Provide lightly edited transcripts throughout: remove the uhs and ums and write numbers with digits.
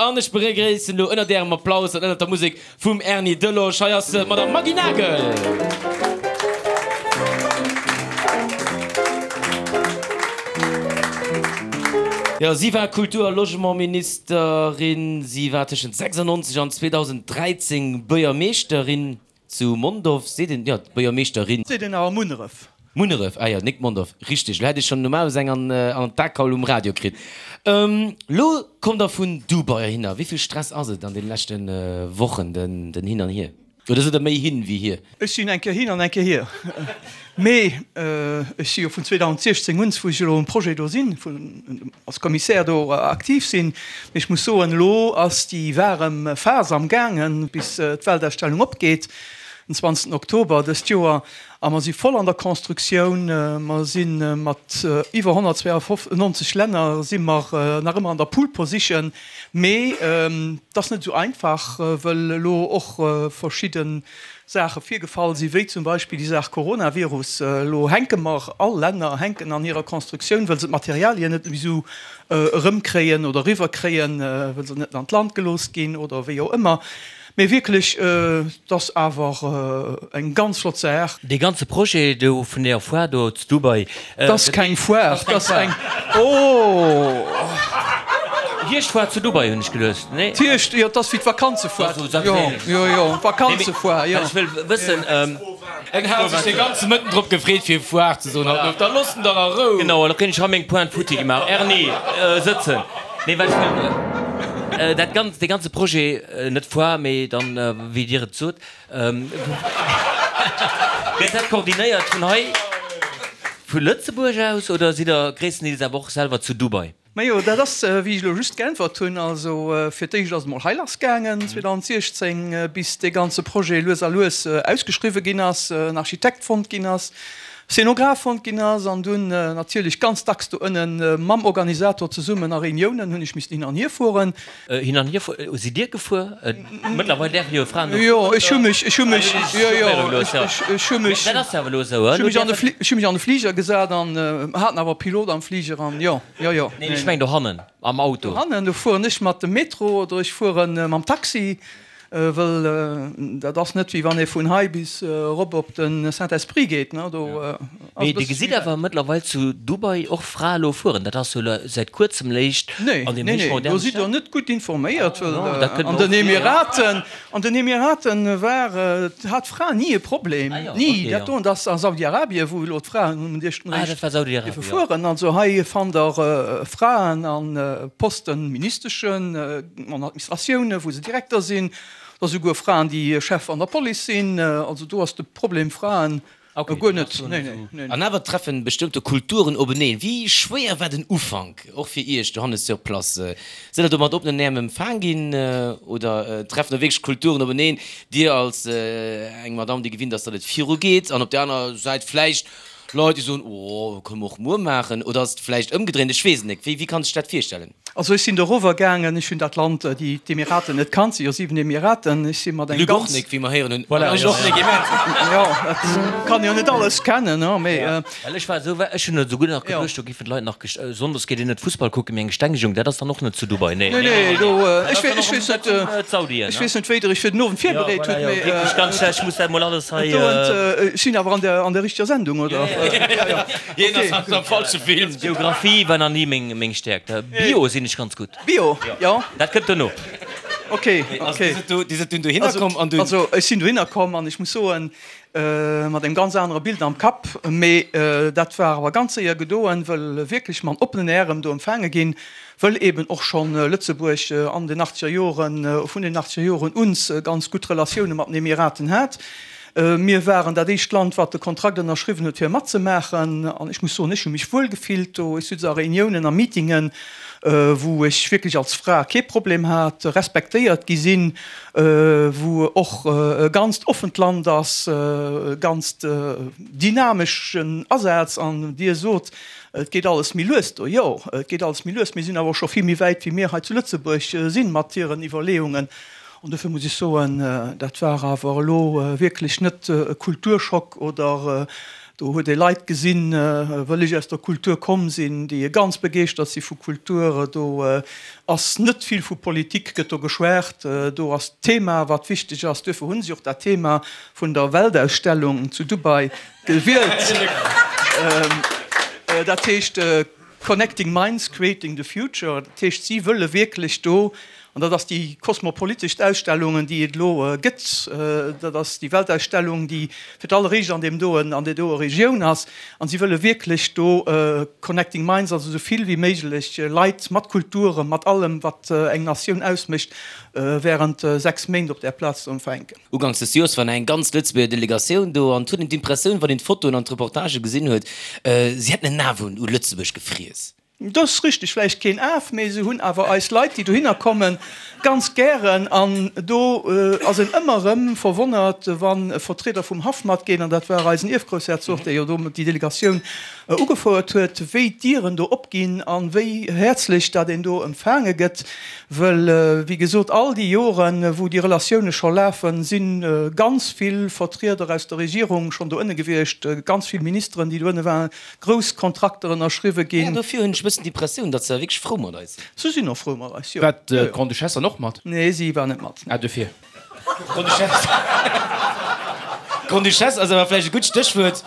An ech begréissen elo ënnert Ärem Applaus an ënnert der Musek vum Erny Delosch, hei ass d'Madame Maggy Nagel. Jo, si war Kultur a Logementministerin, si war tëschent 96 an 2013 Buergermeeschterin zu Mondorf, seet een, jo, Buergermeeschterin. Seet een awer Munneref. Munneref, ah jo, nik Mondorf, richteg. Lo hätt ech schon normalerweis eng an an d'Akaul um Radio kritt. Lo kommt der vun Dubai heihinner. Wéi vill Stress ass et an den leschten Wochen, den den Hin an Hier? Oder sidd der méi hin wéi hier? Ech sinn eng Kéier hin an eng Kéier hier. Mee ech si jo vun 2016 un, wou ech elo um Projet do sinn, vun als Commissaire do aktiv sinn. Mee ech muss soen, elo ass déi waarem Phas am gaangen, bis d'Weltausstellung opgeet den 20 Oktober dëst Joer. A mer si voll an der Constructioun. Mer si mat iwwer 192 Länner si mer nach ëmmer an der Pole Position. Mee et ass net esou einfach, wëll elo och verschidde Saache virgefall sinn, wéi zum Beispill déi Saach Coronavirus. Elo hänke mer, all Länner hänken an hirer Constructioun, wëll se d'Materialien net méi esou erëmkréien oder eriwwerkréien, wëll se net an d'Land gelooss ginn oder wéi och ëmmer. Mee wierklech, et ass awer eng ganz flott Saach. Dee ganze Projet do vun deer Foire do zu Dubai. Et ass keng Foire, et ass eng, oh! Hierschtfoire zu Dubai hunn ech geluecht, nee? D'Hierscht, jo, et ass wéi d'Vakanzefoire. Jo, jo, jo, d'Vakanzefoire, jo. Ech wëll wëssen. En hat sech de ganze Mëtten drop gefreet fir Foire ze soen haut, da looss en dach a Rou! Genau, elo kréien ech hei meng Pointe futti gemaach. Erni, sëtzen. Nee, well ech wëll dat ganz, dee ganze Projet, net Foire, mee dann, wéi Dir et sot, gëtt dat koordinéiert vun hei, vu Lëtzebuerg aus, oder sidd Der gréisstendeels awer och selwer zu Dubai? Majo, dat ass, wéi ech elo just geäntwert hunn. Also fir d'éischt ass et emol hei lassgaangen 2016, bis dee ganze Projet lues a lues ausgeschriwwe ginn ass, en Architekt fonnt ginn ass, Szenograph fonnt ginn ass an dunn natierlech ganz dacks do ënne mam Organisator zesummen a Reuniounen hunn ech missen hin an hier fueren. Hin an hier fuer, sidd Dir gefuer? Mëttlerweil däerfe jo Fraen och Jo, ech hu mech, ech hu mech, jo, jo, ech hu mech, Dat ass jo awer elo esou, ech hu mech an de Fli, ech hu mech an de Fliger gesat an haten awer e Pilot am Fliger an jo, jo, jo. Neen, ech mengen dohannen am Auto. Dohannen, do fueren ech mat dem Metro oder ech fuere mam Taxi. Wëll dat ass net wéi wann ee vun hei bis erop op de Saint-Esprit geet, ne, do ass e Mee Dir bësse gesitt méi wäit. awer mëttlerweil zu Dubai och Frae lo fueren. Dat ass jo lo säit kuerzem léicht Nee, an deem nee, héich nee, do moderne sidd Der Staat. net gutt informéiert, wëll Non, dat kënnt an mer den och vir, jo. Emiraten, an den Emiraten war, hat d'Fra ni e Problem, Ah jo, ni. okay, Dat jo. doen ass a Saudi-Arabien, wou elo d'Fraen um éischten Ah, Réischt dat war Saudi-Arabien, dierfe jo. fueren. Also hei fannt Der Fraen a Posten, Ministeschen, An Administratiounen, wou se Direkter sinn, da souguer Fraen, déi Chef an der Police sinn. Also do ass de Problem Fraen guer net. An awer treffen bestëmmte Kulturen openeen. Wéi schwéier war den Ufank, och fir Iech, Johannes, sur place? Sidd der do mat oppenen Äerm empfaang ginn oder treffen do wierklech Kulturen openeen? Dir als eng Madame, déi gewinnt ass, datt et virugeet, an op där aner Säit vläicht Leit, déi soen, oh, kënne mer och muer maachen. Oder ass et vläicht ëmgedréint? Ech weess et net. Wéi kann sech dat virstellen? Also ech sinn dorower gaangen, ech hunn dat Land, déi, d'Emiraten net kannt, si jo 7 Emiraten, ech si mat engem Luc och ganz. nik, wéi mer héieren hunn. Voilà, Ech och nik, immens. Jo, dat kann jo net alles kennen, ne, mee. Well ech war esou, ech hunn esouguer nach geduecht, do géifen d'Leit nach gest, sonndes geet een net Fussball kucken, mee eng Gestengegung, dat ass dann och net zu Dubai, nee, Nee, nee, nee, do, dat ech ass dann ech och weess net, d'Saudien, ech ne? weess net, wéi Der Iech fir den Owend Jo, virbereet voilà, hutt, jo, mee. wierklech ganz schlecht, ech muss dat emol alles hei. Do, ech sinn awer an der, an der richteger Sendung, oder? Jo, jo, jo. Hien ass am falsche Film. Geographie war nach ni meng Stäerkt. Bio sinn ech ganz gutt. Bio, jo. Dat kënnt dono. Ok, ok. Dir sidd dunn dohinner komm an dunn. Also ech sinn dohinner komm an ech muss soen, mat engem ganz anere Bild am Kapp. Mee dat war awer ganz séier gedoen, wëll wierklech mat oppenen Ärem do empfaange ginn, wëll eben och schonn Lëtzebuerg an den achtzeger Joren, vun den achtzeger Joren un ganz gutt Relatioune mat den Emiraten hat. Mir waren dat éischt Land, wat de Kontrakt ënnerschriwwen huet, fir matzemaachen. An ech muss soen, ech hu mech wuel gefillt do. Ech sutz a Reuniounen a Meetingen, wou ech wierklech als Fra kee Problem hat, respektéiert gi sinn, wou och e ganzt offent Land ass, e ganzt dynameschen Asaz. An Dir sot, et geet alles méi lues do. Jo, et geet alles méi lues. Mir sinn awer och scho vill méi wäit, wéi mir hei zu Lëtzebuerg sinn, mat hiren Iwwerleeungen. An dofir muss ech soen, dat war awer elo wierklech net e Kulturschock oder. Do huet ee Leit gesinn, wëll ech aus der Kultur komm sinn, déi ganz begeeschtert si vu Kultur. Do ass net vill vu Politik gëtt do geschwat. Do ass d'Thema, wat wichteg ass. Duerfir hu si och dat Thema vun der Weltausstellung zu Dubai gewielt. Dat heescht Connecting Minds, Creating the Future. Dat heescht, si wëlle wierklech do, an dat ass déi kosmopoliteschst Ausstellungen, déi et elo gëtt, dat ass déi Weltausstellung, déi fir d'alleréischt an deem doen, an där doe Regioun ass, an si wëlle wierklech do Connecting Minds, also esou vill wéi méiglech Leit mat Kulturen, mat allem, wat eng Natioun ausmécht, während 6 Méint op där Plaz ze empfänken. Uganks des Joers war nach eng ganz Lëtzebuerger Delegatioun do an et huet een d'Impressioun, wann een d'Fotoen an d'Reportagë gesinn huet, si hätten en Af un Lëtzebuerg gefriess. Dat ass richteg, vläicht keen Af, mee se hunn awer eis Leit, déi dohinner kommen, ganz gären. An do ass een ëmmer erëm verwonnert, wa Vertrieder vum Haff matginn, an dat war eisen Ierfgroussherzog, dee jo do déi Delegatioun ugefouert huet, wéi d'Dieren do opginn a wéi häerzlech dat een do empfaange gëtt. Wëll, wéi gesot, all déi Joren, wou déi Relatioune scho lafen, si ganz vill Vertrieder aus der Regierung schonn do ënne gewiescht, ganz vill Ministeren, déi do ënne waren, grouss Kontrakter ënnerschriwwe ginn. Jo, dofir hunn ech e bëssen d'Impressioun, datt se wierklech frou mat eis sinn. Se sinn och frou mat eis, jo. War d'Grande-Duchesse dann och mat? Nee, si war net mat. Ah, dofir. Grande-Duchesse. Grande-Duchesse ass awer vläicht e gutt Stéchwuert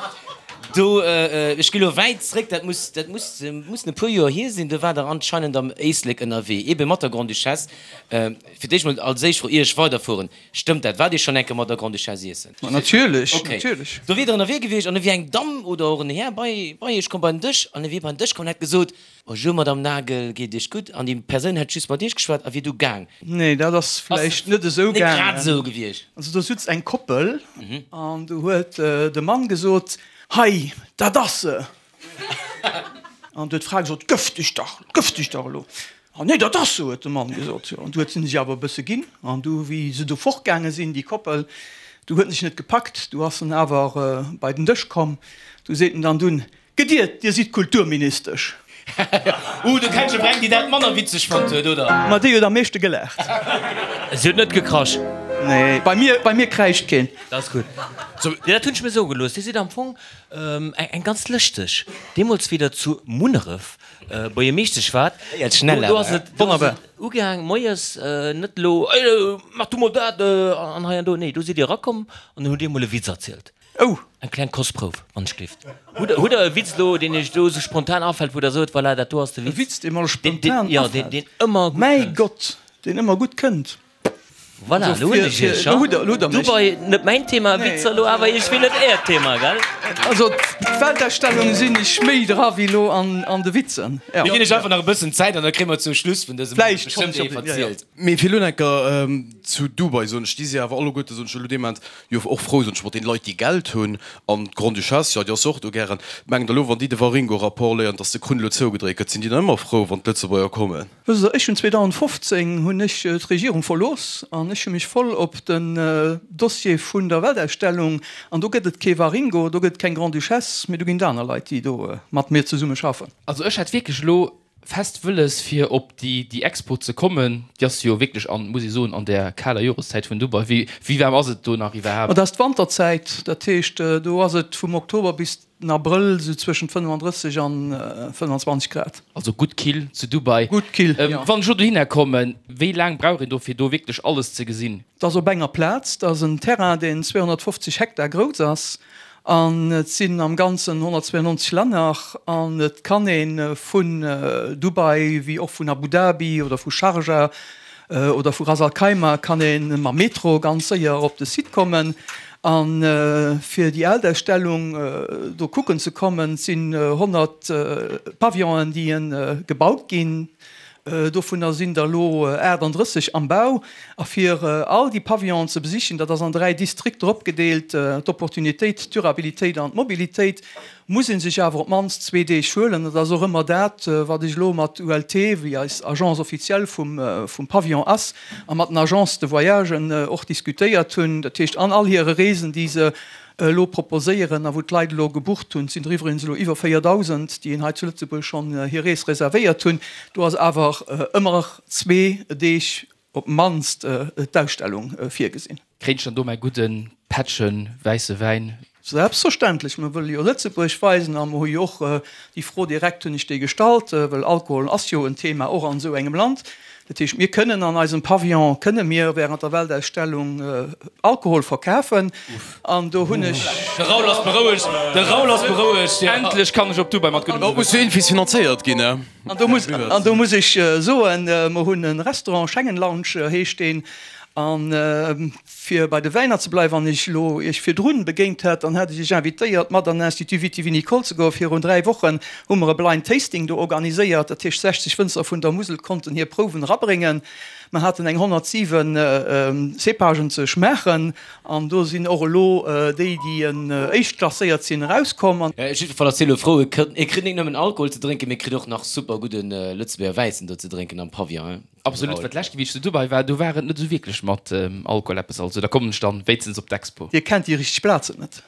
do. Ech gi lo wäit zréck, dat muss, dat muss, mussen e puer Joer hier sinn, do waart Der anscheinend am Éislek ënnerwee, eebe mat der Grande-Duchesse. Fir d'éischt mol als éischt Fro, ier ech weiderfueren, Stëmmt dat? Waart Dir schonn eng Kéier mat der Grande-Duchesse iessen? Ma natierlech, natierlech. Do wier Der ënnerwee gewiescht an da wier eng Damm oder och en Här bei, bei Iech komm, bei den Dësch an e wier bei den Dësch komm an hätt gesot, Bonjour Madame Nagel, geet et Iech gutt? An déi Persoun hätt just mat Iech geschwat a wier du gaang. Nee, dat ass vläicht net esou gaangen. Net grad esou gewiescht. Also do sutz eng Koppel an du huet de Mann gesot, Hei, dat ass se! An du huet d'Fra gesot, Gëff dech dach, gëff dech dach elo! Ah nee, dat ass se, huet de Mann gesot. Jo, an du huet se sech awer e bësse ginn. An du, wéi se du fortgaange sinn, déi Koppel, du huet en sech net gepackt, du ass en awer bei den Dësch komm. Du seet en dann dunn, Gediert, Dir sidd Kulturministesch. Uh, du kenns jo eng, déi dat manner witzeg fonnt huet, oder? Ma déi huet am meeschte gelaacht. Si huet net gekrasch. Nee, bei mir, bei mir kräischt keen. Dat ass gutt. Jo, dat hunn ech mir soe gelooss. Dir sidd am Fong eng ganz lëschteg. Deemools, wéi Der zu Munneref Buergermeeschtesch waart, do ass et, do ass et ugaang moies, net elo, Ey, mach du mol dat an hei an do. Nee, do sidd Dir erakomm an dann hutt Dir emol e Witz erzielt. Oh! Eng kleng Kostprouf, wann ech gleeft. Hutt der, hutt der e Witz elo, deen Iech elo esou spontan afält, wou Der sot, voilà, dat do ass de Witz. E Witz, dee mer elo spontan afält? Jo, deen, deen ëmmer gutt kënnt. Mäi Gott, deen ëmmer gutt kënnt. Voilà, elo hunn ech Iech, ha? Elo hutt Der mech. Dubai, net mäin Thema, Witzer elo, awer ech wéll net Äert Thema, gell? Also, d'Weltausstellung sinn ech méi dra wéi elo an de Witzen. Mir ginn Iech einfach nach e bëssen Zäit an da kréie mer zum Schluss vun dësem Owend bestëmmt ee verzielt. Mee fir elo enker zu Dubai, soen ech, déi si awer alleguerte, soen ech elo dee Moment, jo och frou, soen ech, mat deene Leit, déi Geld hunn. An d'Grande-Duchesse, jo, déi ass jo och do gären. Mengt Der elo, wann déi de Waringo-Rapport léieren, datt de Krunn elo zougedréit gëtt, sinn déi dann ëmmer frou, wann d'Lëtzebuerger kommen? Wësst Der, ech hunn 2015 hunn ech d'Regierung verlooss an ech hu mech voll op den Dossier vun der Weltausstellung, an do gëtt et kee Waringo, do gëtt et keng Grande-Duchesse, mee do ginn et aner Leit, déi do mat mir zesumme schaffen. Also ech hätt wierklech elo fest wëlles fir op déi déi Expo ze kommen. Déi ass jo wierklech an, muss ee soen, an där kaler Joreszäit vun Dubai. Wéi wéi waarm ass et do nach iwwerhaapt? Dat ass d'Wanterzäit, dat heescht do ass et vum Oktober bis den Abrëll esou zwëschent 35 an 25 Grad. Also gutt kill zu Dubai. Gutt kill, jo. Wann ech elo dohinner kommen, wéi laang brauch een do fir do wierklech alles ze gesinn? Dat ass op enger Plaz, dat ass en Terrain deen 250 Hektar grouss ass An et sinn am Ganzen 192 Länner an et kann ee vun Dubai wéi och vun Abu Dhabi oder vu Sharjah oder vu Ras Al Khaimah kann ee mam Metro ganz séier op de Site kommen. A fir déi Weltausstellung do kucken ze kommen, sinn 100 Pavillonen déi gebaut ginn. Dovunner sinn der elo 38 am Bau. A fir all déi Pavillonen ze besichen, dat ass an 3 Distrikter opgedeelt, d'Opportunitéit, d'Durabilitéit an d'Mobilitéit, muss ee sech awer op d'mannst zwee Deeg huelen. Dat ass och ëmmer dat, wat ech elo mat ULT, wéi eis Agence officielle vum Pavillon ass, a mat den Agences de voyagen och diskutéiert hunn. Dat heescht, an all hire Reesen, déi se elo proposéieren a wou d'Leit elo gebucht hunn, et sinn der iwwregens elo iwwer 4.000, déi hei zu Lëtzebuerg schonn hir Rees reservéiert hunn, do ass awer ëmmer zwee Deeg op d'mannst d'Ausstellung virgesinn. Kréint ech dann do mäi gudde Pättche wäisse Wäin? Selbstverständlech, mer wëlle jo Lëtzebuerg weisen a mer hu jo och déi Fro direkt hunn ech déi gestallt, well Alkohol ass jo en Thema och an esou engem Land. Dat heescht, mir kënnen an eisem Pavillon kënne mir während der Weltausstellung Alkohol verkafen an do hunn ech. De Raoul ass berouegt, de Raoul ass berouegt, jo. Endlech kann ech op Dubai mat guddem Dat muss jo iergendwéi finanzéiert ginn, ne? An do muss, an do muss ech soen, mer hunn e Restaurant, Schengen Lounge heescht deen, an Fir bei de Wäiner ze bleiwen, wann ech elo Iech virdrun begéint hätt, dann hätt ech Iech invitéiert, mat an den Institut Viti-Vinicole ze goen. Virun 3 Wochen hu mer e Blind Tasting do organiséiert. Dat heescht, 60 Wënzer vun der Musel konnten hir Prouwen erabréngen. Mer haten eng 107 Cépagen ze schmaachen an do sinn och elo déi, déi éischt klasséiert sinn, erauskomm. Jiddwerfall ass hie elo frou, e kritt net nëmmen Alkohol ze drénken, mee kritt och nach super gudde Lëtzebuerger Wäissen do ze drénken am Pavillon. Absolut, well d'lescht wéi ech zu Dubai war, do war et net esou wierklech mat Alkohol eppes, also da kommen ech dann wéinstens op d'Expo. Dir kennt déi richteg Plazen net.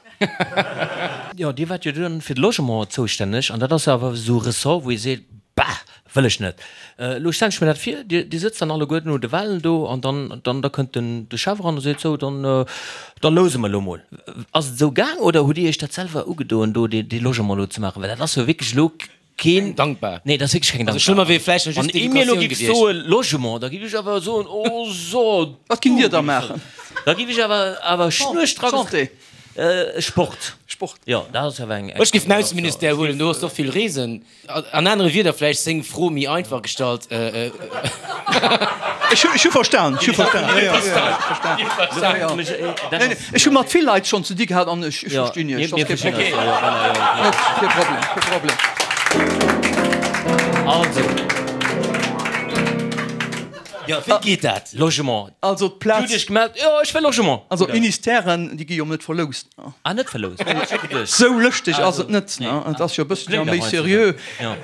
Jo, Dir waart jo dunn fir de Logement zoustänneg an dat ass jo awer esou e Ressort, wou ee seet, Bah, wëll ech net. Elo stellen ech mir dat vir, Dir, Dir sëtzt dann alleguerten un de Walen do an dann, dann, da kënnt den, de Chef eran a seet, Sou, dann, da louse mer elo mol. Ass et esou gaang oder hutt Dir Iech dat selwer ugedoen, do dee, dee Logement elo ze maachen? Well dat ass jo wierklech elo Keen dankbar. Nee, dat ass wierklech keng dankbar. Also schlëmmer wier vläicht nach just d'Educatioun gewiescht. Wann ee mir elo giff soe Logement, da giff ech awer soen, oh so. Wat ginnt Dir da maachen? Da giff ech awer awer schnurstracks. Santé. Sport. Sport. Jo, dat ass awer eng. Ech giff den Ausseministère huelen, do ass och vill Reesen. An anere Wierder vläicht seng Fro méi einfach gestallt. Ech hu verstan, ech hu verstan. Ech hu mat vill Leit schonn ze di gehat an ech verstinn Iech. Dat ass kee Problem. Net kee Problem, kee Problem. Also. Jo, wéi geet dat? Logement. Also d'Plaz. Dir hutt Iech gemellt, jo, ech wëll Logement. Also d'Ministèren, déi gi jo net verloust. Ah, net verloust. Sou lëschteg ass et net. Et ass jo e bësselche méi seriö.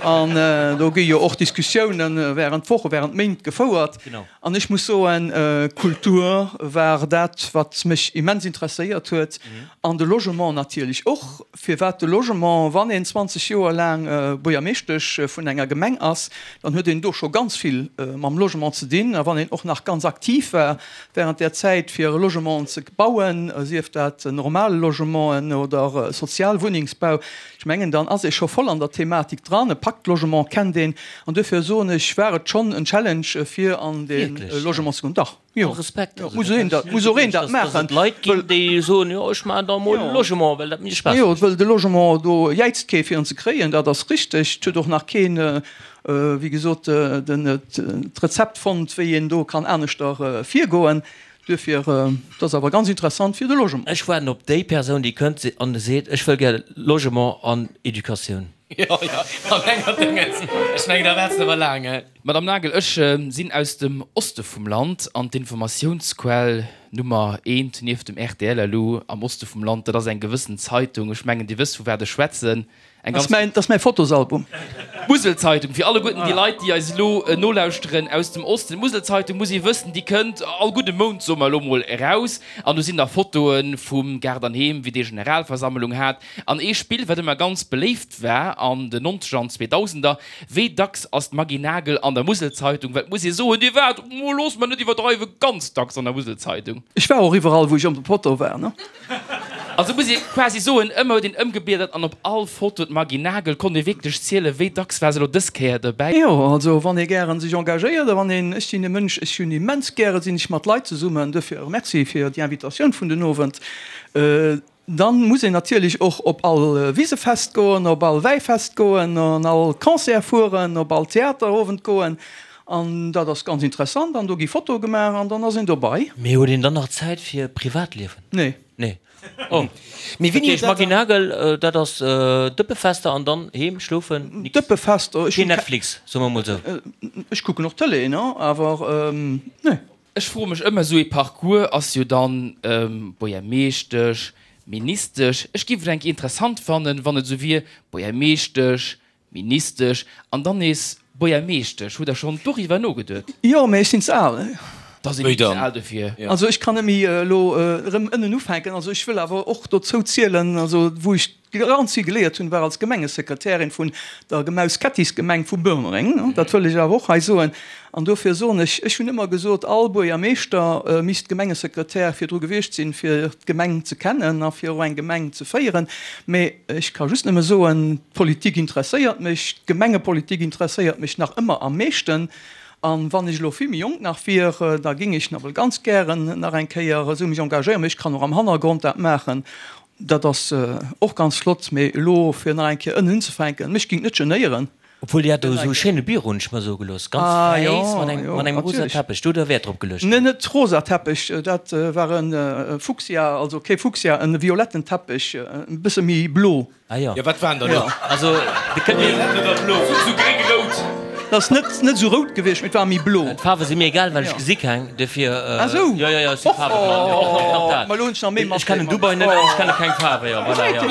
An do gi jo och Diskussiounen während Wochen, während Méint gefouert. An ech muss soen, Kultur war dat, wat mech immens interesséiert huet. An de Logement natierlech och. Firwat de Logement? Wann een 20 Joer laang Buergermeeschtesch vun enger Gemeng ass, dann huet een do scho ganz vill mam Logement ze dinn. A wann een och nach ganz aktiv war während där Zäit, fir Logementen ze bauen, sief dat normal Logementen oder Sozialwunnengsbau, ech mengen, dann ass ee scho voll an der Thematik dran. E Pacte Logement kennt een. An duerfir soen ech, war et schonn en Challenge, fir an de Logement ze goen. Dach, jo, Respekt, jo, muss een dat, muss och een dat maachen. Dass et Leit ginn, déi soen, jo, ech maachen da emol e Logement, well dat mir Spaass mécht. Jo, well de Logement, do jäizt kee fir en ze kréien, dat ass richteg. Et huet och nach keen, wéi gesot, den, d'Rezept fonnt, wéi een do kann aneschter virgoen. Duerfir, dat ass awer ganz interessant fir de Logement. Ech waarden op déi Persoun, déi kënnt an seet, ech wëll gär Logement an Educatioun. Jo, jo, an enger Déngens. Ech mengen, da waarts de awer laang, he? Madame Nagel, ech sinn aus dem Oste vum Land an d'Informatiounsquell Nummer eent nieft dem rtl elo am Oste vum Land, dat ass eng gewëssen Zeitung. Ech mengen, Dir wësst, vu wat ech schwätzen. Eng ganz. Dat ass mäi Fotosalbum. D'Muselzeitung, fir alleguerten déi Leit, déi eis elo nolauschteren aus dem Osten, d'Muselzeitung, muss ee wëssen, déi kënnt all gudde Mount, soe mer elo mol, eraus. An do sinn da Fotoe vum Gaart an Heem, wéi dee Generalversammlung hat. An ee Spill, wat ëmmer ganz beléift war an den Nonzeger an Zweedausender, Wéi dacks ass d'Maggy Nagel an der Muselzeitung? Well et muss ee soen, Dir waart, oh, loosse mer net iwwerdreiwen, ganz dacks an der Muselzeitung. Ech war och iwwerall, wou ech op der Foto war, ne? Also muss ee quasi soen, ëmmer huet een ëmgebliedert an op all Foto d'Maggy Nagel. Konnt ee wierklech zielen, wéi dacks war se elo dës Kéier dobäi? Jo, also wann ee gären sech engagéiert a wann een, ech sinn e Mënsch, ech hunn immens gäre sinn ech mat Leit zesummen, duerfir Merci fir déi Invitatioun vun den Owend. Dann muss een natierlech och op all Wisefest goen, op all Wäifest goen, an all Concert fueren, op all Theaterowend goen. An dat ass ganz interessant an do gi Fotoe gemaach an dann ass een dobei. Mee huet een dann nach Zäit fir Privatliewen? Nee. Nee. Oh. Mee wéini huet dat Maggy Nagel, dat ass Dëppefester an dann heem, schlofen, nix. Dëppefester, ech hunn. Keen Netflix, soe mer mol sou. Ech kucken och Tëlee, ne, awer nee. Ech froe mech ëmmer, esou ee Parcours ass jo dann Buergermeeschtesch, Ministesch. Ech géif et eng Kéier interessant fannen, wann et esou wier, Buergermeeschtesch, Ministesch an dann nees Buergermeeschtesch. Hutt Der schonn doriwwer nogeduet? Jo, mä ech sinn ze al. Da sinn ech ze al dofir. Also ech kann net méi elo erëm ënnen ufänken. Also ech wëll awer och dozou zielen, also wou ech ganz vill geléiert hunn, war als Gemengesekretärin vun der Gemaus-Kettis-Gemeng vu Boermereng. Dat wëll ech awer och hei soen. An dofir soen ech, ech hunn ëmmer gesot, all Buergermeeschter misst Gemengesekretär virdru gewiescht sinn, fir d'Gemeng ze kennen a fir och eng Gemeng ze féieren. Mä ech ka just nëmme soen, d'Politik interesséiert mech, d'Gemengepolitik interesséiert mech nach ëmmer am meeschten. An wann ech elo vill méi jonk nach wier, da géing ech nawell ganz gären nach eng Kéier esou mech engagéieren. Mee ech kann och am Hannergrond dat maachen. Dat ass och ganz flott. Mee elo fir nach eng Kéier ënnen unzefänken, mech géing et net genéieren. Obwuel Dir hat do esou e schéine Büro, hunn ech mer soe gelooss, ganz wäiss mat engem mat engem rosa Teppech. Do hutt Der Wäert drop geluecht, Nee, net rosa Teppech, dat war e Fuchsia, also kee Fuchsia, e violetten Teppech, e bësse méi blo. Ah jo. Jo, wat waren der do? Also, de kënnt mir. Violett oder blo? Sou gréng-rout. Dat ass net, net esou rout gewiescht, mee et war méi blo. D'Faarwe si mir egal, well ech gesi keng, dofir. Ah sou. Jo, jo, jo, ech si faarweblann. Jo, och nach dat. Ma elo hunn ech nach méi Ech kennen Dubai net an ech kenne keng Faarwe, jo, voilà, jo.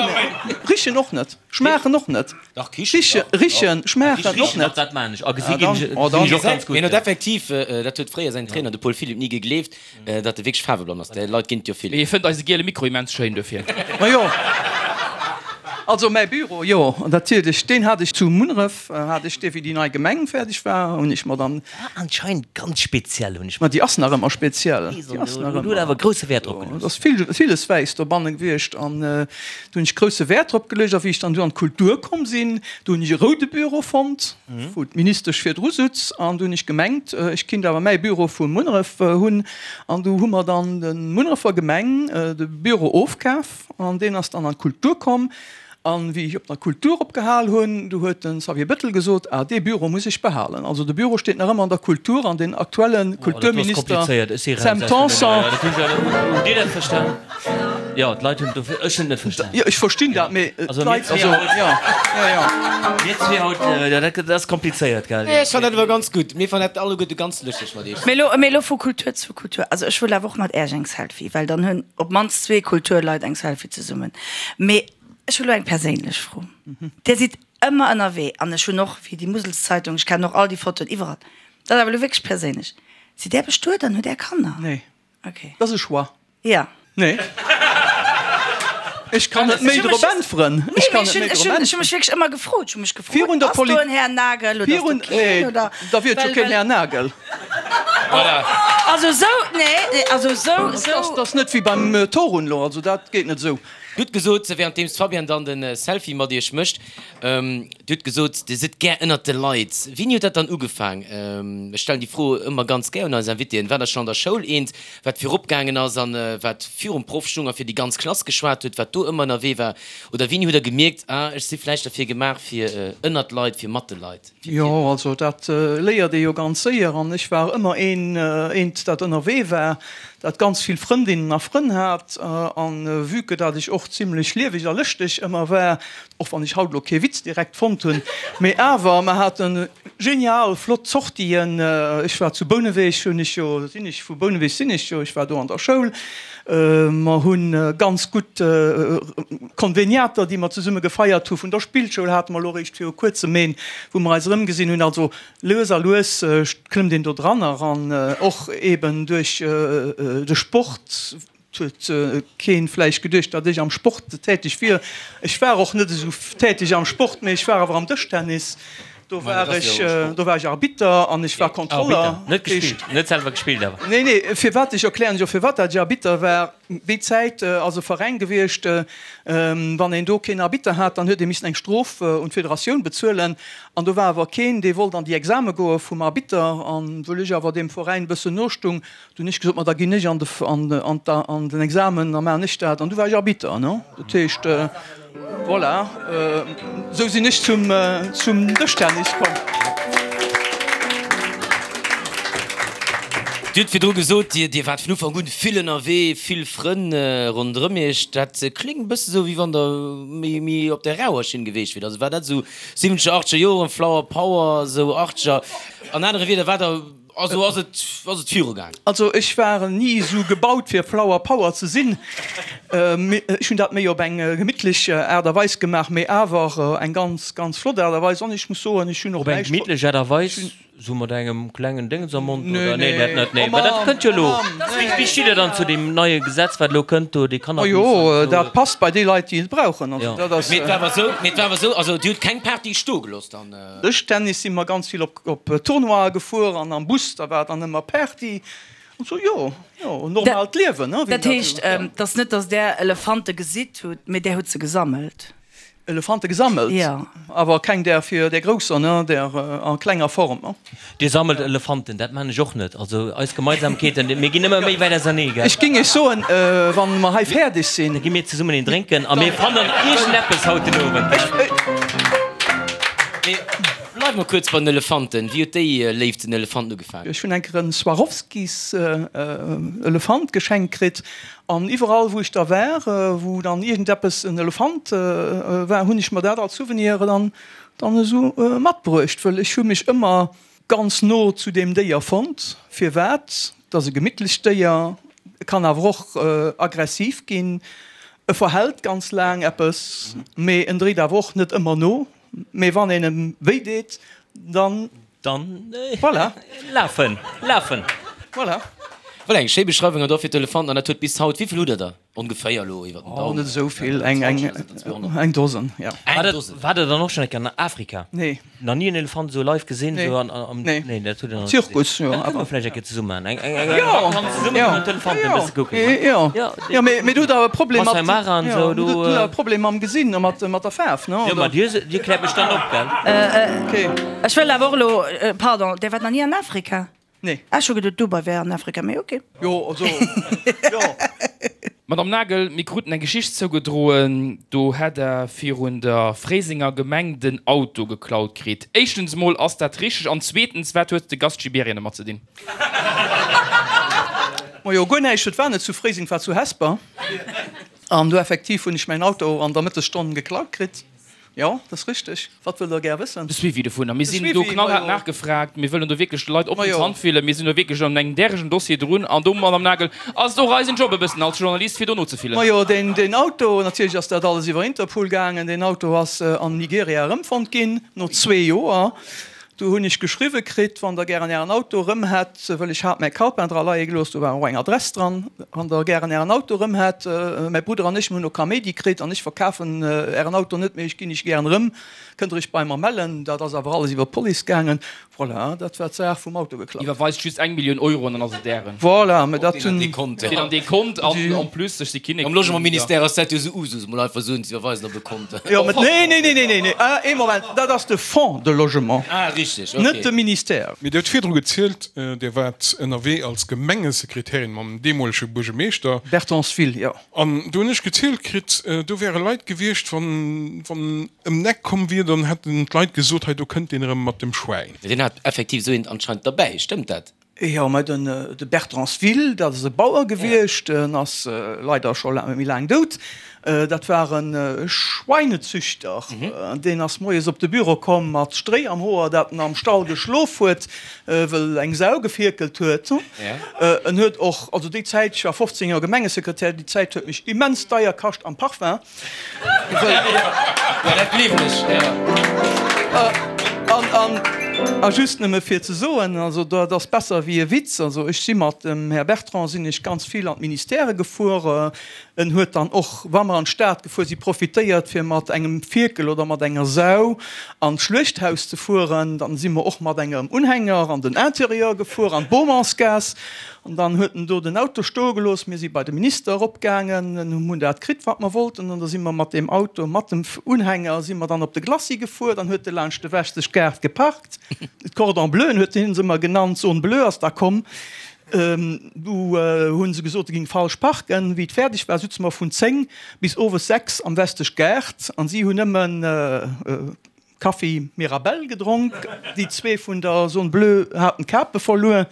Richen och net, schmaachen och net. Dach, kichen, dach. Richen, schmaachen och Richen, net. dach, dat maan ech. A gesi ginn ech, gesinn ech och ganz gutt. Hien huet effektiv, dat huet fréier säin Trainer, de Paul Philipp, ni gegleeft, Datt e wierklech faarweblann ass, där Leit ginn et jo vill. Mee hie fënnt eise giele Mikro immens schéin dofir. Majo, also mäi Büro, jo, natierlech, deen hat ech zu Munneref, hat ech dee wéi déi nei Gemeng fäerdeg war, hunn ech mer dann. War anscheinend ganz speziell, hunn ech. Ma déi ass nach ëmmer speziell, déi ass nach ëmmer. Huet awer grousse Wäert drop geluecht. Et ass vill, villes wäiss dobanne gewiescht an do hunn ech grousse Wäert drop geluecht. A wéi ech dann du an d'Kultur komm sinn, do hunn ech e roude Büro fonnt. wou d'Ministesch virdru sutz, an du hunn ech gemengt, ech kinnt awer mäi Büro vu Munneref hunn, an du hu mer dann de Munnerefer Gemeng de Büro ofkaf, an deen ass dann an d'Kultur komm. An wéi ech op der Kultur opgehal hunn, du huet de Xavier Bettel gesot, ah dee Büro muss ech behalen. Also de Büro steet nach ëmmer an der Kultur, an den aktuelle Kulturminister Sam Tanson. Hutt Dir dat verstan? Jo, d'Leit hunn dofir, ech hunn et net verstan. Jo, ech verstinn dat, mee d'Leit, also, jo, jo, jo. Mir zwee haut, jo, dat ass komplizéiert, gell? Nee, ech fannen dat awer ganz gutt. Mir fannen dat alleguerte ganz lëschteg mat iech. Mee elo, mee elo vu Kultur zu Kultur. Also ech wëll awer och mat Äerch eng Selfie, well dann hunn op d'mannst zwee Kulturleit eng Selfie zesummen. Mee ech hu lo eng perséinlech Fro. Dir sidd ëmmer ënnerwee an ech hunn och, wéi déi Muselszeitung, ech kennen och all déi Fotoen iwwerall. Dat ass awer elo wierklech perséinlech. Sidd Där bestuet an hutt Är Kanner? Nee. Okay. Dat ass e Choix. Ja. Nee. Ech kann net méi drop äntweren. Ech kann net méi drop äntweren. Ech hu mech wierklech ëmmer gefrot. Ech hu mech gefrot, Virun der ass do en Här Nagel oder ass do keen oder. Da wier et jo keen Här Nagel. Voilà. Also esou, nee, also esou, esou. Dat ass net wéi beim Torun elo, also dat geet net esou. Gutt gesot, währenddeems d'Fabienne dann de Selfie mat iech mécht. Dir hutt gesot, Dir sidd gär ënnert de Leit. Wéini huet dat dann ugefaang? Ech stellen déi Fro ëmmer ganz gär un eis Invitéen. War der schonn an der Schoul eent, wat virop gaangen ass an wat virum Proff stung a fir déi ganz Klass geschwat huet, wat do ëmmer ënnerwee war? Oder wéini hutt Der gemierkt, ah, ech si vläicht derfir gemaach, fir ënnert d'Leit, fir mat de Leit? Jo, also dat léiert ee jo ganz séier. An ech war ëmmer een, eent, dat ënnerwee war, dat ganz vill Frëndinnen a Frënn hat. An vue que dat ech och zimlech lieweg a lëschteg ëmmer war, och wann ech haut elo kee Witz direkt fonnt hunn, mee awer, mer hate genial flott Sortien. Ech war zu Bouneweg, hunn ech jo, sinn ech, vu Bouneweg sinn ech jo, ech war do an der Schoul. Mer hu ganz gutt Konveniater, déi mer zesumme gefeiert hu. Vun der Spillschoul hate mer elo eréischt viru kuerzem een, wou mer eis erëmgesinn hunn. Also lues a lues klëmmt een do dran eran, och eeben duerch de Sport. Et huet keen vläicht geduecht, datt ech am Sport täteg wier. Ech war och net esou täteg am Sport, mee ech war awer am Dëschtennis. Do war ech, do war ech Arbitter an ech war Kontroller. Net gespillt, net selwer gespillt awer? Nee, nee, firwat, ech erklären lech och firwat dat ech Arbitter war. Déi Zäit ass e Veräin gewiescht, wann een do keen Arbitter hat, dann huet ee missen eng Strof un d'Federatioun bezuelen. An do war awer keen, dee wollt an déi Exame goe vum Arbitter. An wëll ech awer deem Veräin e bëssen nostung, Du hunn ech gesot, ma da ginn ech an de, an, an an den Examen, da maachen ech dat. An du war ech Arbitter, ne? Dat heescht, voilà, esou sinn ech zum, zum Dëschtennis komm. Dir hutt virdru gesot, Dir, Dir waart vun Ufank un vill ënnerwee, vill Frënn ronderëm Iech. Dat kléngt e bësse sou, wéi wann Der méi, méi op der rauer Schinn geweecht wiert. Also war dat esou siwwenzeger, achteger Joren, Flower Power, esou achteger? An anere Wieder, war Der Also ass et, ass et viru gaang? Also ech war ni esou gebaut fir Flower Power ze sinn. Ech hunn dat méi op eng gemittlech Aart a Weis gemaach, mee awer eng ganz, ganz flott Aart a Weis. An ech muss soen, ech hunn och Op eng näischt. gemittlech Aart a Weis? Sou mat engem klengen Déngens am Mond, oder? Nee, dat net, nee. Mä dat kënnt jo elo. Wéi stitt Der dann zu deem neie Gesetz, wat elo kënnt do, dee Cannabis an esou? Majo, dat passt bei déi Leit, déi et brauchen. Also dat ass. Mee et war awer esou, mee et war awer esou, also Dir hutt keng Party stoe gelooss dann? Dëschtennis si mer ganz vill op, op Tournoie gefuer an am Bus, da war dann ëmmer Party an esou. Jo, jo, en normaalt Liewen, ne? Dat heescht, et ass net, datt Der Elefante gesitt hutt, mee Der hutt se gesammelt? Elefante gesammelt, awer keng där fir där grousser, ne, där a klenger Form, ne. Dir sammelt Elefanten, dat man ech och net. Also eis Gemeinsamkeeten, mir ginn ëmmer méi wäit ausernee, gell? Ech ging iech soen, wann mer hei fäerdeg sinn. Da gi mir zesummen een drénken a mir fannen iergendeppes haut den Owend, gell? Mee bleiwe mer kuerz bei den Elefanten. Wéi huet déi Léift zu den Elefanten ugefaangen? Ech hunn eng Kéier en Swarovskis Elefant geschenkt kritt An iwwerall wou ech da war, wou dann iergendeppes en Elefant war, hunn ech mer dat als Souvenir dann dann esou matbruecht, wëll ech hu mech ëmmer ganz no zu deem Déier fonnt. Firwat? Et ass e gemittlecht Déier, e kann awer och aggressiv ginn, e verhält ganz laang eppes, mee en dréit awer och net ëmmer no, mee wann een em wéi deet, dann. Dann voilà. Lafen, lafen. Voilà. Voilà, eng schéi Beschreiwung an dofir d'Elefanten. An dat huet bis haut, wéi vill hutt der der ongeféier elo iwwer den Daumen? Oh, net esou vill, eng, eng, eng Dosen, jo. Eng Dosen. Waart der dann och schonn eng Kéier an Afrika? Nee. Nach ni en Elefant esou live gesinn? Nee. Esou an, am, Nee. Nee, dat hutt der nach net gesinn. Zirkus, jo, Dat kënne awer. mer vläicht eng Kéier zesumme maachen. Eng, eng, eng, eng Jo, Vakanz zesumme jo, kënnen d'Elefanten e jo, bësse kucken, ne? jo. Jo, Jo, mee, mee du hutt awer e Problem mat, Masai Mara an jo, esou, du do. hutt awer e Problem mam Gesinn a mat, mat der Faarf, ne, Jo, oder? ma Dir, Dir kläert mech dann op, gell? Okay. Ech wëll awer och elo, pardon, Dir waart nach ni an Afrika? Nee. Ech hu geduet Dubai wär an Afrika, mee ok. Jo, also, jo. Madame Nagel, mir kruten eng Geschicht zougedroen, do hätt Der virun der Fréisenger Gemeng den Auto geklaut kritt. Éischtens emol, ass dat richteg? An zweetens, wat huet de Gast Gibéryen domat ze dinn? Majo, guer näischt. Et war net zu Fréiseng, et war zu Hesper. An do effektiv hunn ech mäin Auto an der Mëttesstonn geklaut kritt. Jo, dat ass richteg. Wat wëllt Der gär wëssen? De Suivi dovunner. Mir sinn do knallhaart nachgefragt. Mir wëllen do wierklech de Leit op den Zant fillen. Mir sinn do wierklech an engem däregen Dossier drun. An do, Madame Nagel, ass et och eisen Job e bëssen als Journalist, fir do nozefillen. Majo, deen Auto, natierlech ass dat alles iwwer Interpol gaangen, deen Auto ass an Nigeria erëmfonnt ginn, no zwee Joer. Do hunn ech geschriwwe kritt, wann Der gären Ären Auto erëm hätt, wëll ech hat mäi Calepin dra leie gelooss, do war och eng Adress dran, wann Der gären Ären Auto erëm hätt, mäi Brudder an ech, mir hunn elo Kaméidi kritt an ech verkafen Ären Auto net, mee ech ginn Iech gären erëm, kënnt Der Iech bei mer mellen. Dat ass awer alles iwwer d'Police gaangen. Voilà, dat war d'Saach vum Auto geklaut. Iwwerweist just eng Millioun Euro an dann ass et Ären. Voilà, mä dat hunn. Deen an dee Kont. Deen an dee Kont an en plus, ech si Kinnek Am Logementministère ass dat jo esou Usus, mol einfach soen, ze iwwerweisen op e Kont. Jo, mä nee, nee, nee, nee, nee, nee, ah, ee Moment, dat ass de Fonds de Logement. Ah, richteg, okay. Net de Ministère. Mee Dir hutt virdru gezielt, Dir waart ënnerwee als Gemengesekretärin mam deemolege Buergemeeschter. Bertonsville, jo. An do hunn ech gezielt kritt, do wäre Leit gewiescht, wann wann ëm d'Eck komm wier, dann hätten d'Leit gesot, hei do kënnt deen erëm mat dem Schwäin. Deen hat effektiv esou eent anscheinend derbäi, stëmmt dat? Jo, mä den de Bertransville, dat ass e Bauer gewiescht, en ass leider scho méi laang dout. Dat war e Schweinezüchter. Deen ass moies op de Büro komm mat Stréi am Hoer, dat en am Stall geschlof huet, wëll eng Sau gefierkelt huet. En huet och, also déi Zäit, ech war 15 Joer Gemengesekretär, déi Zäit huet mech immens deier kascht am Parfum. Jo, dat gleewen ech, jo. A just nëmme fir ze soen, also dat ass besser wéi e Witz, also ech si mat dem Här Bertrand sinn ech ganz vill an d'Ministèrë gefuer. En huet dann och, wa mer an d'Stad gefuer si, profitéiert fir mat engem Fierkel oder mat enger Sau an d'Schluechthaus ze fueren. Dann si mer och mat engem Unhänger an den Intérieur gefuer, an d'Baumansgaass. An dann huet en do den Auto stoe gelooss. Mir si bei de Minister eropgaangen, hunn dat kritt, wat mer wollten. An da si mer mat deem Auto, mat dem Unhänger, si mer dann op de Glacis gefuer. Dann huet e laanscht de Wechseg Gaart geparkt. D'Cordon Bleuen huet hien se ëmmer genannt. D'Zone bleue ass da komm. Du hu se gesot, se géing falsch parken. Wéi et fäerdeg war, sutze mer vun 10 bis owes 6 am Westesch Gaart an si hunn nëmmen Kaffi Mirabelle gedronk. Déi zwee vun der Zone Bleue haten d'Kape verluer.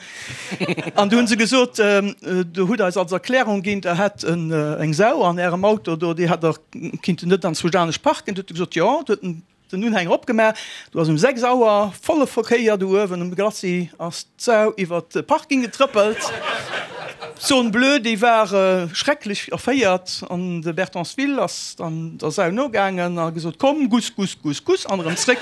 An du hu se gesot, Der hutt eis als Erklärung ginn, Der hätt eng Sau an Ärem Auto do, déi hätt Der kinnten net anzwousch anescht parken. Du huet e gesot, Jo. Du huet en Den Unhänger opgemaach, do ass um 6 Auer volle Verkéier do uewen um Glacis ass d'Sau iwwert de Parking getrëppelt. D'Zone bleue déi war schrecklech erféiert an de Bertensville ass dann der Sau nogaangen a gesot, Komm, guss, guss, guss, guss an erëm zréck.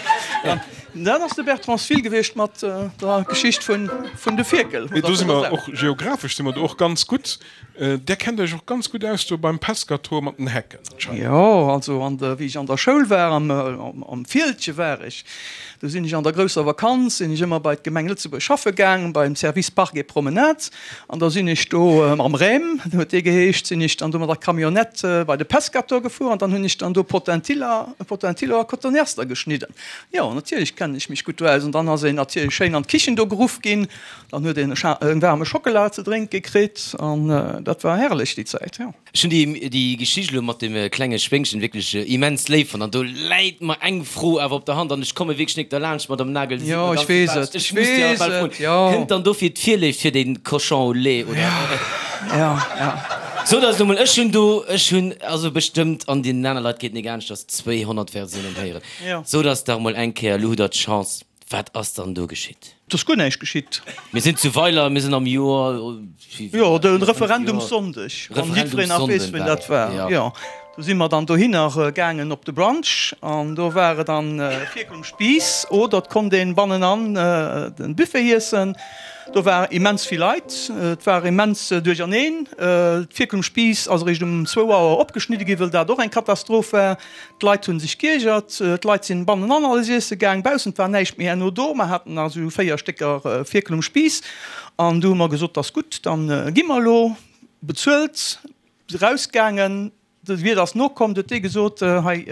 Dat ass de Bertrand Svill gewiescht mat der Geschicht vun de Fierkel. Mee do si mer och geographesch si mer do och ganz gutt. Där kennt Iech och ganz gutt aus do beim Pescator mat den Hecken anscheinend. Jo, also an der, wéi ech an der Schoul war, am, am Fieldche war ech, do sinn ech an der grousser Vakanz, sinn ech ëmmer bei d'Gemeng Lëtzebuerg schaffe gaang, beim Service Parcs et Promenades. An da sinn ech do mam Rem, huet dee geheescht, sinn ech dann do mat der Camionnette bei de Pescator gefuer an dann hunn ech dann do Potentilla, Potentillo a Cotoneaster geschnidden. Jo, natierlech kennen ech mech gutt do aus. An dann ass een natierlech schéin an d'Kichen do geruff ginn. Dann huet een e waarme Schockela ze drénke kritt an dat war herrlech déi Zäit, jo. Ech hunn déi Geschicht elo mat dem klenge Schwéngchen wierklech immens léif fonnt an do läit mer eng Fro awer op der Hand an ech komme wierklech nik derlaanscht, Madame Nagel, Dir sidd mer ganz sympathesch, ech muss déi awer bal froen, kënnt dann dofir d'Virléift fir den Cochon au lait oder? Jo, jo. Sot eis elo mol, ech hunn do, ech hunn also bestëmmt, an deenen aner Leit geet nik anescht, dass 200 Versiounen héieren, sot eis dach mol eng Kéier, elo hutt Der d'Chance, Wat ass dann do geschitt? Et ass guer näischt geschitt. Mir sinn zu Weiler, mir sinn am Joer. Jo, de Referendumssonndeg, wann jiddwereen nach weess, wéini dat war. Jo, do si mer dann dohinner gaangen op de Brunch an do war et dann Fierkel um Spiiss oder et konnt een bannenan den Buffet iessen. Do war immens vill Leit, et war immens duercherneen. D'Fierkel um Spiiss ass eréischt um zwou Auer opgeschnidde ginn, wëll dat och eng Katastroph war. D'Leit hunn sech giergert, d'Leit sinn bannenan alles iesse gaang, baussent war näischt méi herno do. Mer haten nach esou 4 Stécker Fierkel um Spiiss an du hu mer gesot, 't ass gutt, dann gi mer elo. Bezuelt, rausgaangen, de Wiert ass nokomm, du huet dee gesot, hei,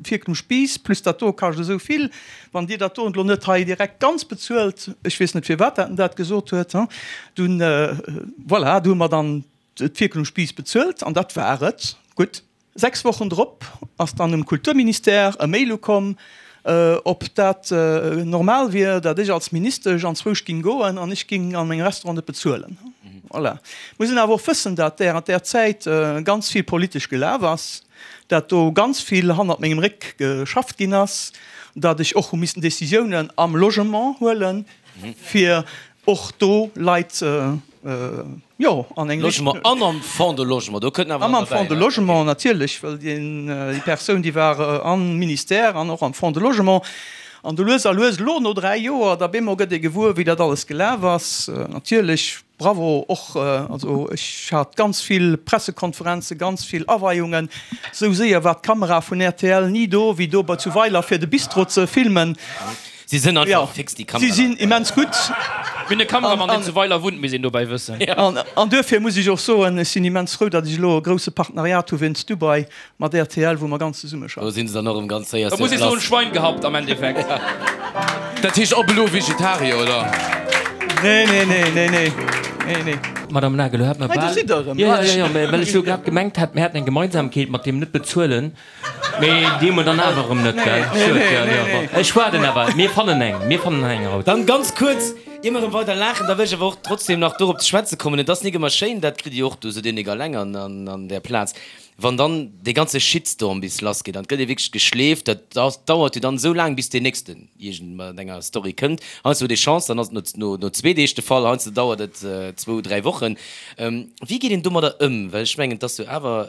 Fierkel um Spiiss plus dat do kascht esou vill, wann Dir dat do elo net hei direkt ganz bezuelt, ech weess net firwat dat en dat gesot huet, dunn, voilà, du hu mer dann d'Fierkel um Spiiss bezuelt an dat war et. Gutt. 6 Wochen drop ass dann um Kulturministère e Mail ukomm, ob dat normal wier, dat ech als Ministesch anzwousch ging goen an ech ging an mengem Restaurant net bezuelen. Voilà. Muss een awer och wëssen, dat während där Zäit ganz vill politesch gelaf ass, dat do ganz vill hannert mengem Réck geschafft ginn ass, dat ech och hu missen Décisiounen am Logement huelen, fir och do Leit jo an eng Logement an am Fonds de Logement, do kënnt awer nach derbäi. An am Fonds de Logement natierlech, well déi Persoun, déi war am Ministère an och am Fonds de Logement. An du lues a lues, elo no 3 Joer, da bemol gëtt ee gewuer, wéi dat alles gelaf ass. Natierlech, bravo och, also ech hat ganz vill Pressekonferenzen, ganz vill Aweiungen. Esou séier war d'Kamera vun rtl ni do, wéi do bei zu Weiler fir de Bistro ze filmen. Si sinn einfach fix, déi Kameraleit. Si sinn immens gutt. Mir hunn e Kameramann, deen zu Weiler wunnt, misst een dobäi wëssen. An duerfir muss ech och soen, ech sinn immens frou, datt ech elo e grousse Partenariat hu wéinst Dubai mat rtl, wou mer ganz zesumme schaffen. Do sinn se dann och erëm ganz séier sur place. Da muss ee soen, Schwein gehabt am Endeffekt. Dat heescht op elo Vegetarier, oder? Nee, nee, nee, nee, nee, nee, nee. Madame Nagel, elo hat mer bal. Hei, do sidd Der erëm. Jo, jo, jo, mä well ech jo grad gemengt hat, mir hätten eng Gemeinsamkeet mat deem Net-Bezuelen. Mee déi hu mer dann awer erëm net, gell? Schued, jo, jo, bon. Ech waarden awer. Mir fannen eng. Mir fannen eng haut. Dann ganz kuerz, ier mer erëm weider laachen, da wëll ech awer och trotzdem nach dorop ze schwätze kommen, Et ass nik ëmmer schéin, dat kritt Dir och, do sot Dir nik alleng an där Plaz, wann dann dee ganze Shitstorm bis lassgeet an et gëtt ee wierklech geschleeft, dat dauert jo dann esou laang, bis deen nächsten iergend mat enger Story kënnt. Heiansdo huet ee Chance, dann ass et no no zwee Deeg de Fall, heiansdo dauert et zwou, dräi Wochen. Wéi geet een domadder ëm? Well ech mengen, et ass jo awer,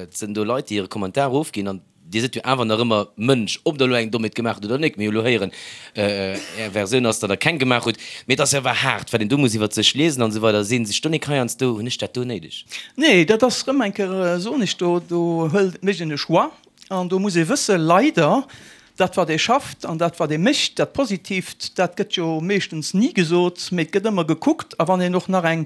et sinn do Leit, déi hire Kommentar ofginn an Dir sidd jo awer nach ëmmer Mënsch, ob Der elo eng Dommheet gemaach hutt oder net. Mir hu elo héieren, Är Versioun ass, datt Der keng gemaach hutt. Mee et ass jo awer haart, wat een do muss iwwert sech liesen an esou weider. Sinn sech do nik heiansdo, hunn ech dat do néideg? Nee, dat ass erëm eng Kéier, soen ech, do do hëlt, mécht een e Choix an do muss ee wësse leider, Dat wat ee schafft an dat wat ee mécht, dat Positiivt, dat gëtt jo meeschtens ni gesot, mee et gëtt ëmmer gekuckt. A wann een och nach eng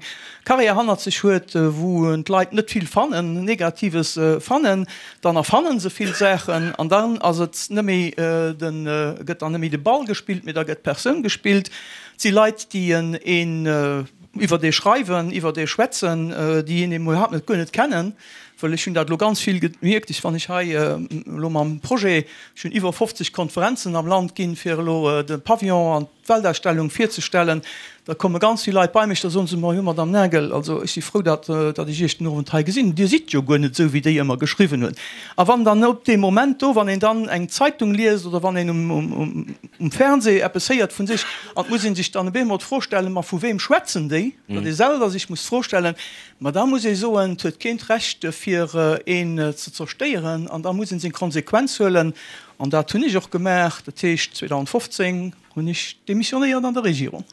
Carrière hannert sech huet, wou d'Leit net vill fannen, Negatives fannen, dann erfannen se vill Saachen an dann ass et net méi den, gëtt dann net méi de Ball gespillt, mee da gëtt d'Persoun gespillt. Et si Leit, déi een iwwert ee schreiwen, iwwert ee schwätzen, déi een iwwerhaapt net, guer net kennen. Well ech hunn dat elo ganz vill gemierkt, ech, wann ech hei elo mam Projet, ech hunn iwwer 50 Konferenzen am Land ginn, fir elo de Pavillon an d'Weltausstellung virzestellen, da komme ganz vill Leit bei mech, da soen se, Ma jo, Madame Nagel, also ech si frou, datt, datt ech Iech den Owend hei gesinn hunn, Dir sidd jo guer net esou, wéi déi ëmmer geschriwwen hunn. A wann dann op deem Moment do, wann een dann eng Zeitung liest oder wann een um, um Fernseh eppes héiert vu sech, an et muss ee sech dann op eemol d'Fro stellen, Ma vu wem schwätzen déi? Datt ee selwer sech muss d'Fro stellen, Ma da muss ee soen, et huet keen d'Recht fir. fir een ze zerstéieren an da muss een seng Konsequenz huelen an dat hunn ech och gemaach. Dat heescht 2015 hunn ech demissionéiert an der Regierung.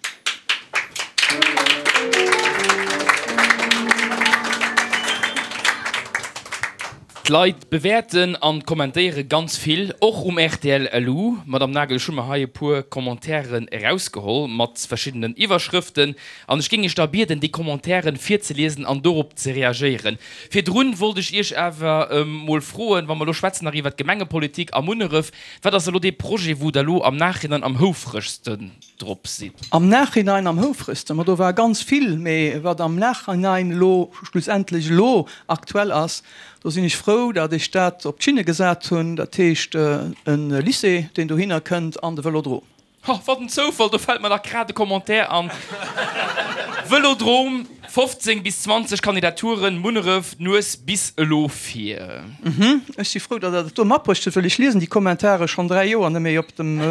D'Leit bewäerten an kommentéiere ganz vill, och um rtl LU. Madame Nagel, ech hu mer hei e puer Commentairen erausgeholl mat verschiddenen Iwwerschrëften an ech géing Iech da bieden, déi Commentairen virzeliesen an dorop ze reagéieren. Virdrun wollt ech Iech awer mol froen, wa mer elo schwätzen nach iwwert d'Gemengepolitik a Munneref, Wat ass elo dee Projet, wou Der elo am Nachhinein am houfregsten drop sidd? Am Nachhinein am houfregsten? Ma do war ganz vill, mee wat am Nachhinein elo schlussendlech elo aktuell ass, do sinn ech frou, datt ech dat op d'Schinne gesat hunn, dat heescht e Lycée, deen dohinner kënnt an de Vëlodrom. Ha, wat en Zoufall, do fällt mer dach grad e Commentaire an. Vëlodrom, 15 bis 20 Kandidaturen, Munneref, d'Nues bis elo vir. Mhm, ech si frou, datt Der dat do matbruecht hutt, well ech liesen déi Kommentare schonn 3 Joer net méi op dem,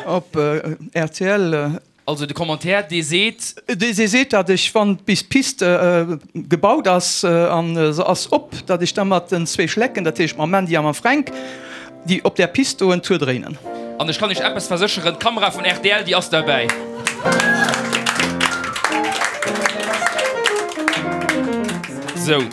op rtl. Also de Commentaire, dee seet. Dee seet, datt ech, wann bis d'Piste gebaut ass an se ass op, datt ech da mat den zwee Schlecken, dat heescht mam Mandy a mam Fränk, déi op där Piste do en Tour dréinen. An ech kann Iech eppes versécheren, d'Kamera vun rtl, déi ass derbäi. Sou,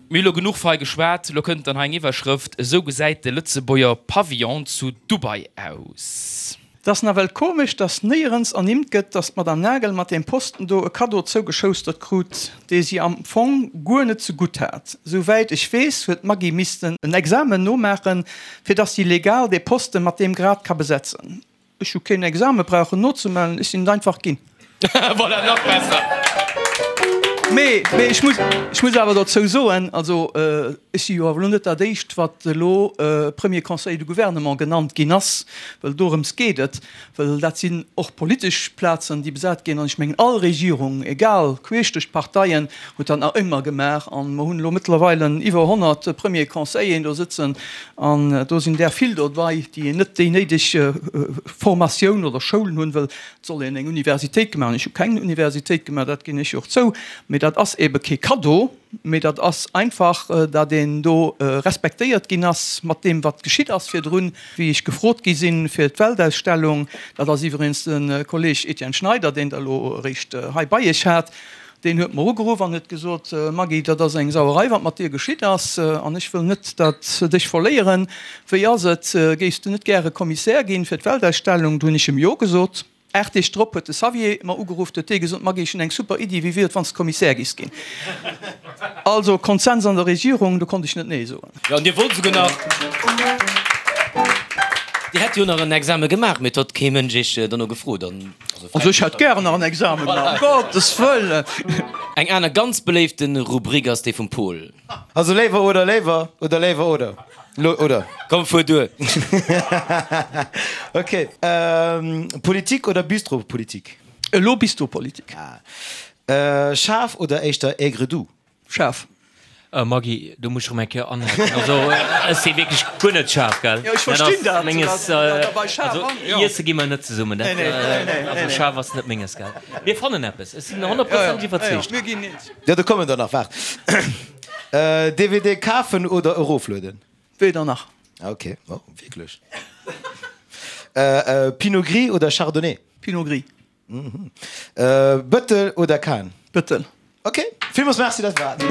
mir hu lo genuch fei geschwat. Lo kënnt dann hei eng Iwwerschrëft, Esou gesäit de Lëtzebuerger Pavillon zu Dubai aus. Et ass nawell komesch, dass néierens ernimmt gëtt, dass d'Madame Nagel mat deem Posten do e Kaddo zougeschoustert krut, dee si am Fong guer net ze gutt hat. Sou wäit ech weess, huet d'Maggy missten en Examen nomaachen, fir dass si legal dee Posten mat deem Grad ka besetzen. Ech hu keen Exame brauchen nozemellen, ech sinn et einfach ginn. Voilà, nach besser! Mee, mee ech muss, ech muss awer dozou soen, also ech si jo awer elo net dat Éischt, wat elo Premier Conseiller du Gouvernement genannt ginn ass, well dorëms geet et, well dat sinn och politesch Plazen, déi besat ginn. An ech mengen, all Regierung, egal, queesch duerch d'Parteien, huet dat nach ëmmer gemaach. An mer hunn elo mëttlerweile iwwer 100 Premier Conseilleren do sëtzen an do sinn där vill dobei, déi net déi néideg Formatioun oder Schoulen hunn, well Et soll een eng Universitéit gemaach hunn. Ech hu keng Universitéit gemaach, dat ginn ech jo och zou. Mee dat ass eebe kee Kaddo, mee dat ass einfach, datt een do respektéiert ginn ass mat deem, wat geschitt ass virdrun, wéi ech gefrot gi sinn fir d'Weltausstellung. Dat ass iwwregens de Kolleeg Etienne Schneider, deen Der elo eréischt hei bei Iech hat. Deen huet mer ugeruff an huet gesot, Maggy, dat ass eng Sauerei, wat mat dir geschitt ass, an ech wëll net, datt dech verléieren. Wéi ass et, géifs du net gäre Kommissär ginn fir d'Weltausstellung? Du hunn ech em Jo gesot. 8 Deeg drop huet de Xavier mer ugeruff, huet dee gesot, Maggy, ech hunn eng super Iddi, wéi wier et, wann s de Kommissär giss ginn? Also Konsens an der Regierung, do konnt ech net Nee soen. Jo, an Dir wollt esouguer nach, Dir hätt jo nach en Exame gemaach, mee et huet kee Mënsch Iech dono gefrot. An also ech hätt gären nach en Exame gemaach, ëm Gottes Wëllen! Eng aner ganz beléifte Rubrik ass déi vum Pol. Also léiwer oder léiwer oder léiwer oder lo oder? Komm fuer duer! Ok, Politik oder Bistropolitik? Elo Bistropolitik. Schaarf oder éischter aigre-doux? Schaarf. Maggy, do muss ech erëm eng Kéier anhaken. Also, ech si wierklech guer net schaarf, gell? Jo, ech verstinn dat. Menges, also iesse gi mer net zesummen. Dat, also schaarf ass net menges, gell? Mir fannen eppes, ech sinn honnertprozenteg iwwerzeegt. Mir ginn eens. Jo, do kommen der nach, waart. DVD kafen oder eroflueden? Weder nach. Ok, oh, wierklech? Pinot Gris oder Chardonnay? Pinot Gris. Bëttel oder Kahn? Bëttel. Ok, villmools Merci, dat war et.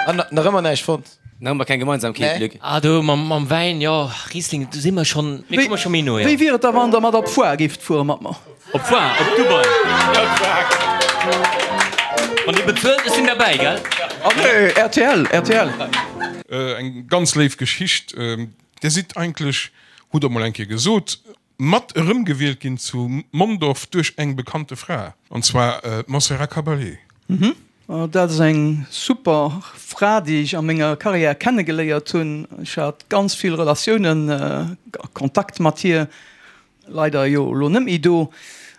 An nach ëmmer näischt fonnt? Nach ëmmer keng Gemeinsamkeet, Luc? Ah do mam Wäin, jo, Riesling, do si mer schonn, mir komme scho méi no, jo. Wéi wier et da wann der mat op d'Foire géift fuere mat mer? Op d'Foire, op Dubai. Wann Dir bezuelt, ech sinn derbäi, gell? Ah nee, rtl, rtl. Eng ganz léif Geschicht. Dir sidd eigentlech, hutt Der mol eng Kéier gesot, mat erëmgewielt ginn zu Mondorf duerch eng bekannte Fra, an zwar d'Montserrat Caballé. Dat ass eng super Fra, déi ech a menger Karriär kennegeléiert hunn. Ech hat ganz vill Relatiounen a Kontakt mat hir. Leider jo elo net méi do.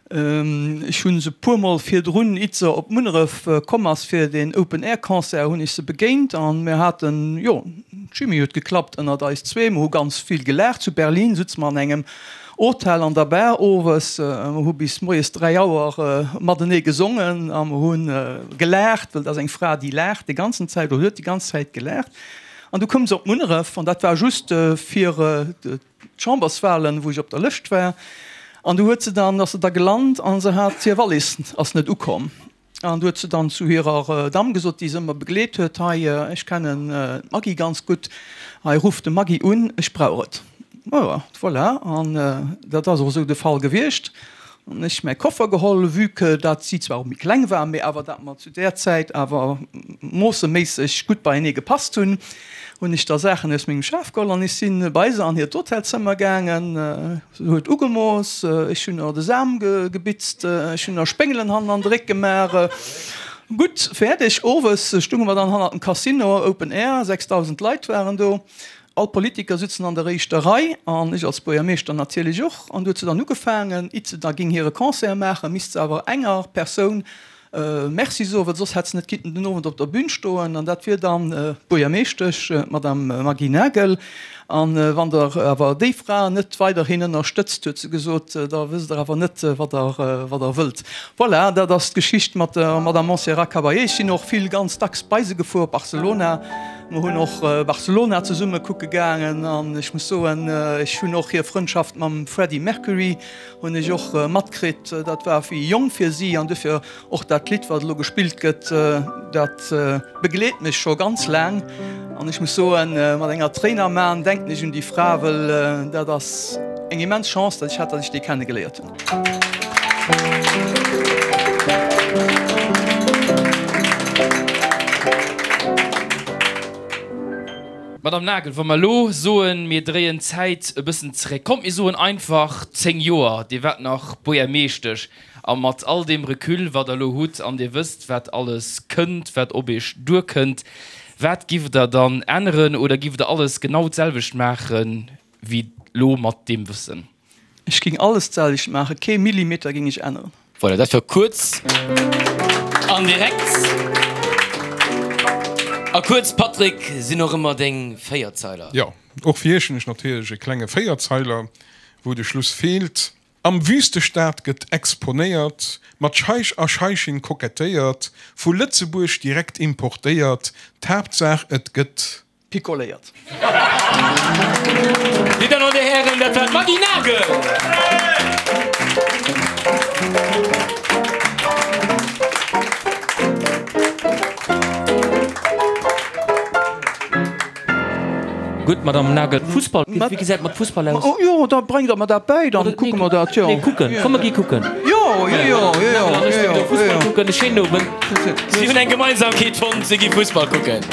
Ech hu se puermol virdrun, itt se op Munneref komm ass fir deen Open Air Concert, hunn ech se begéint an mir haten, jo, d'Chimie huet geklappt ënnert eis zwee. Mer hu ganz vill gelaacht. Zu Berlin sutze mer an engem Hotel an der Bar owes. Mer hu bis moies 3 Auer matenee gesongen a mer hu gelaacht, well et ass eng Fra, déi laacht déi ganzen Zäit oder huet déi ganz Zäit gelaacht. An du koum se op Munneref an dat war just fir d'Chamberswahlen, wou ech op der Lëscht war, an du huet se dann, ass se da gelant an se hat hir Wallis ass net ukomm. An du huet se dann zu hirer Damm gesot, déi se ëmmer begleet huet, hei, ech kennen d'Maggy ganz gutt, hei ruff de Maggy un, ech brauch et. Jo, voilà, an dat ass och esou de Fall gewiescht. An ech mäi Koffer geholl, vue que dat si zwar och méi kleng war, mee awer dat mer zu där Zäit awer moosseméisseg gutt beienee gepasst hunn, hunn ech da Saachen aus mengem Schaf geholl an ech si bei se an hiert Hotelzëmmer gaangen. Se huet ugemooss, ech hunn der de Sam gebitzt, ech hunn der Spéngelen hannen an de Réck gemaach. Gutt, fäerdeg. Owes stunge mer dann hannert dem Casino, Open Air, 6.000 Leit waren do. All d'Politiker sitzen an der éischter Rei, an ech als Buergermeeschter natierlech och. An du huet se dann ugefaangen, it se da ging hire Concert maachen, misst se awer enger Persoun Merci soen, well soss hätt se net kinnten den Owend op der Bühn stoen. An dat wier dann d'Buergermeeschtesch, d'Madame Maggy Nagel. An wann Der awer déi Fra net weiderhin ënnerstëtzt, huet se gesot, da wësst Der awer net, wat Der, wat Der wëllt. Voilà, dat ass d'Geschicht mat der Madame Montserrat Caballé. Ech sinn och vill, ganz dacks bei se gefuer op Barcelona. Mer hunn och Barcelona zesumme kucke gaangen an ech muss soen, ech hunn och hir Frëndschaft mam Freddie Mercury hunn ech och matkritt. Dat war wéi jonk fir si an dofir och dat Lidd, wat elo gespillt gëtt, dat begleet mech scho ganz laang. An ech muss soen, mat enger Tréin am Aen denken ech un déi Fra, wëll dat ass eng immens Chance, datt ech hat, datt ech déi kennegeléiert hunn. Madame Nagel, wa mer elo soen, mir dréien d'Zäit e bëssen zeréck, kommt mir soen einfach 10 Joer, Dir waart nach Buergermeeschtesch, a mat all deem Recul, wat Der elo hutt, an Dir wësst, wat alles kënnt, wat op Iech duerkënnt, wat giff Der dann änneren oder giff Der alles genau d'selwecht maachen wéi elo mat deem Wëssen? Ech ging alles d'selwecht maachen, kee Millimeter ging ech änneren. Voilà, dat war kuerz an direkt. A kuerz, Patrick, sinn och ëmmer deng Véierzeiler. Jo, och fir iech hunn ech natierlech e klenge Véierzeiler, wou de Schluss feelt. Am Wüstestaat gëtt exponéiert, mat Scheich a Scheichin kokettéiert, vu Lëtzebuerg direkt importéiert, d'Haaptsaach et gëtt. Picoléiert. Dir Dammen an Dir Hären, dat war d'Maggy Nagel! Gutt, Madame Nagel, Fussball, wéi gesäit et mat Fussball aus? Oh jo, da bréngt Der mer dat bäi, dann kucke mer dat, jo. Nee, kucken, komm mer gi kucken. Jo, jo, jo, jo, jo. Nagel an ech ginn do Fussball kucken. E schéinen Owend. Si hunn eng Gemeinsamkeet fonnt, si gi Fussball kucken.